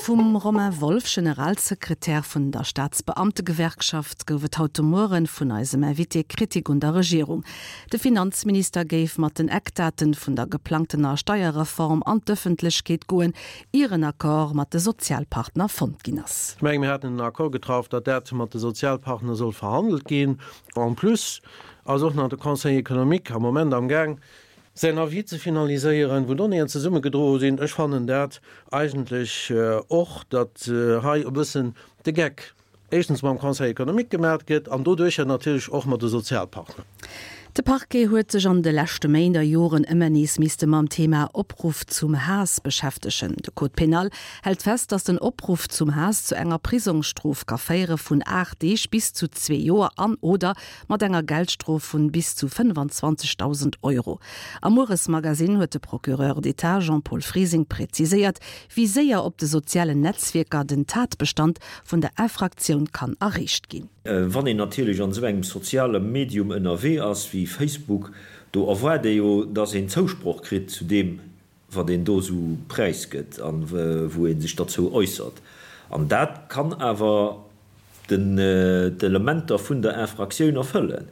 Vum Romain Wolff, Generalsekretär vun der Staatsbeamtegewerkschaft, gouf et haut de Mueren vun eisem Invité Kritik un der Regierung. De Finanzminister géif mat den Eckdaten vun der geplangtener Steierreform an d'Ëffentlechkeet goen, ier en Accord mat de Sozialpartner fonnt ginn ass. Ech mengen, mir haten en Accord getraff, datt dat mat de Sozialpartner soll verhandelt ginn. En plus ass och nach de Conseil économique am Moment amgaang, säin Avis ze finaliséieren, wou Donnéeën zesummegedroe sinn. Ech fannen dat eigentlech och, datt hei e bëssen de Geck éischtens mam Conseil économique gemaat gëtt an doduercher natierlech och mat de Sozialpartner. De Parquet huet sech an de leschte Méint a Joren ëmmer nees misste mam Thema Opruff zum Haass beschäftegen. De Code pénal hält fest, datt den Opruff zum Haass zu enger Prisongsstrof ka féiere vun 8 Deeg bis zu zwee Joer an oder mat enger Geldstrof vun bis zu 25.000 Euro. Am Mueresmagasinn huet de Procureur d'État Jean-Paul Frising präziséiert, wéi séier op de sozialen Netzwierker den Tatbestand vun der Infraktioun kann erreecht ginn. Wann een natierlech an esou engem soziale Medium ënnerwee ass wéi Facebook, do erwaart ee jo, dass een Zousproch kritt zu deem, wat een do esou präisgëtt a wou ee sech derzou äussert. An dat kann awer d'Elementer vun der Infraktioun erfëllen.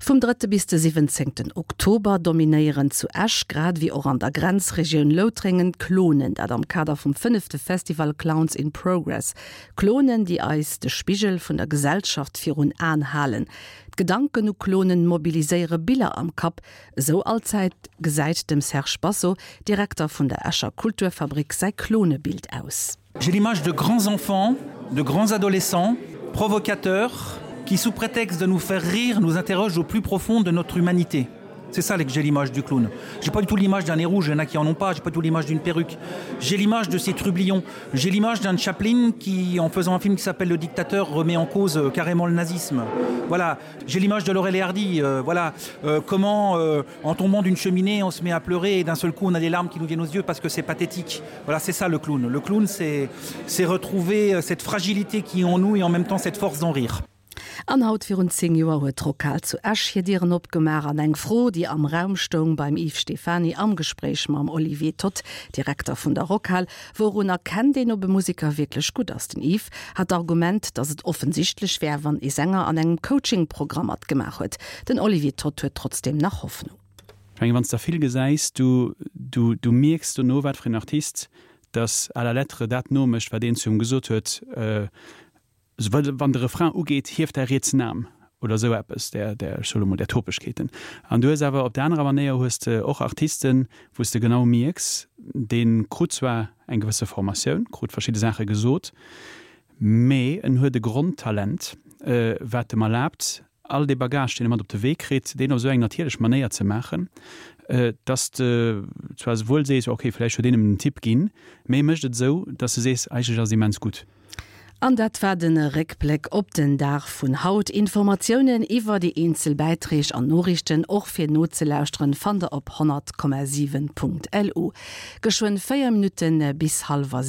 Vum drëtte bis de siwwenzéngten Oktober dominéieren zu Esch, grad ewéi och an der Grenzregioun Loutrengen, d'Klonen. Dat am Kader vum fënnefte Festival Clowns in Progress. Klonen, déi eis de Spigel vun der Gesellschaft virun Aen halen. D'Gedanken u Klonen mobiliséiere Biller am Kapp, Esou allzäit gesäit dem Serge Basso, Direkter vun der Escher Kulturfabrik, säi Klonebild aus. J'ai l'image de grands enfants, de grands adolescents, provocateurs, qui sous prétexte de nous faire rire nous interrogent au plus profond de notre humanité. C'est ça que j'ai l'image du clown. J'ai pas du tout l'image d'un nez rouge, il y en a qui en ont pas, j'ai pas du tout l'image d'une perruque. J'ai l'image de ces trublions. J'ai l'image d'un Chaplin qui, en faisant un film qui s'appelle Le Dictateur, remet en cause euh, carrément le nazisme. Voilà, j'ai l'image de Laurel et Hardy. Euh, voilà euh, comment, euh, en tombant d'une cheminée, on se met à pleurer et d'un seul coup on a des larmes qui nous viennent aux yeux parce que c'est pathétique. Voilà, c'est ça le clown. Le clown, c'est retrouver euh, cette fragilité qui est en nous et en même temps cette force d'en rire. An haut virun 10 Joer huet d'Rockhal zu Esch hir Dieren opgemaach an eng Fro, déi am Raum stoung beim Yves Stephany am Gespréich mam Olivier Toth, Direkter vun der Rockhal, Wourun erkennt een, ob e Museker wierklech gutt ass? Den Yves hat d'Argument, datt et offensichtlech wär, wann ee Sänger an engem Coaching-Programm matgemaach huet. Den Olivier Toth huet trotzdeem nach Hoffnung. Ech mengen, wann s de der vill gesäis, du, du, du mierks dono, wat fir een Artist dass à la lettre dat nomécht, wat een zu him gesot huet. Wann de Refrain ugeet, hief däi rietsen Aarm oder esou eppes, där, där, ech soe lo mol, där Topegkeeten. An du hues awer op der anerer Manéier hues de och Artisten, wou s de genau mierks, dee krut zwar eng gewësse Formatioun, krut verschidde Saache gesot, mee en huet e Grondtalent, wat em erlaabt, all dee Bagage, deen e mat op de Wee kritt, deen op esou eng natierlech Manéier ze maachen, dass de zwar souwuel sees, ok, vläicht huet een em den Tipp ginn, mee e mécht et esou, dass de sees, eigentlech ass et immens gutt. An dat war de Réckbléck op den Dag vun haut. Informatiounen iwwer déi eenzel Bäitreeg an Noriichten, och fir nozelauschteren, fannt der op 100,7.lu. Geschwënn 4 Minutte bis hallwer.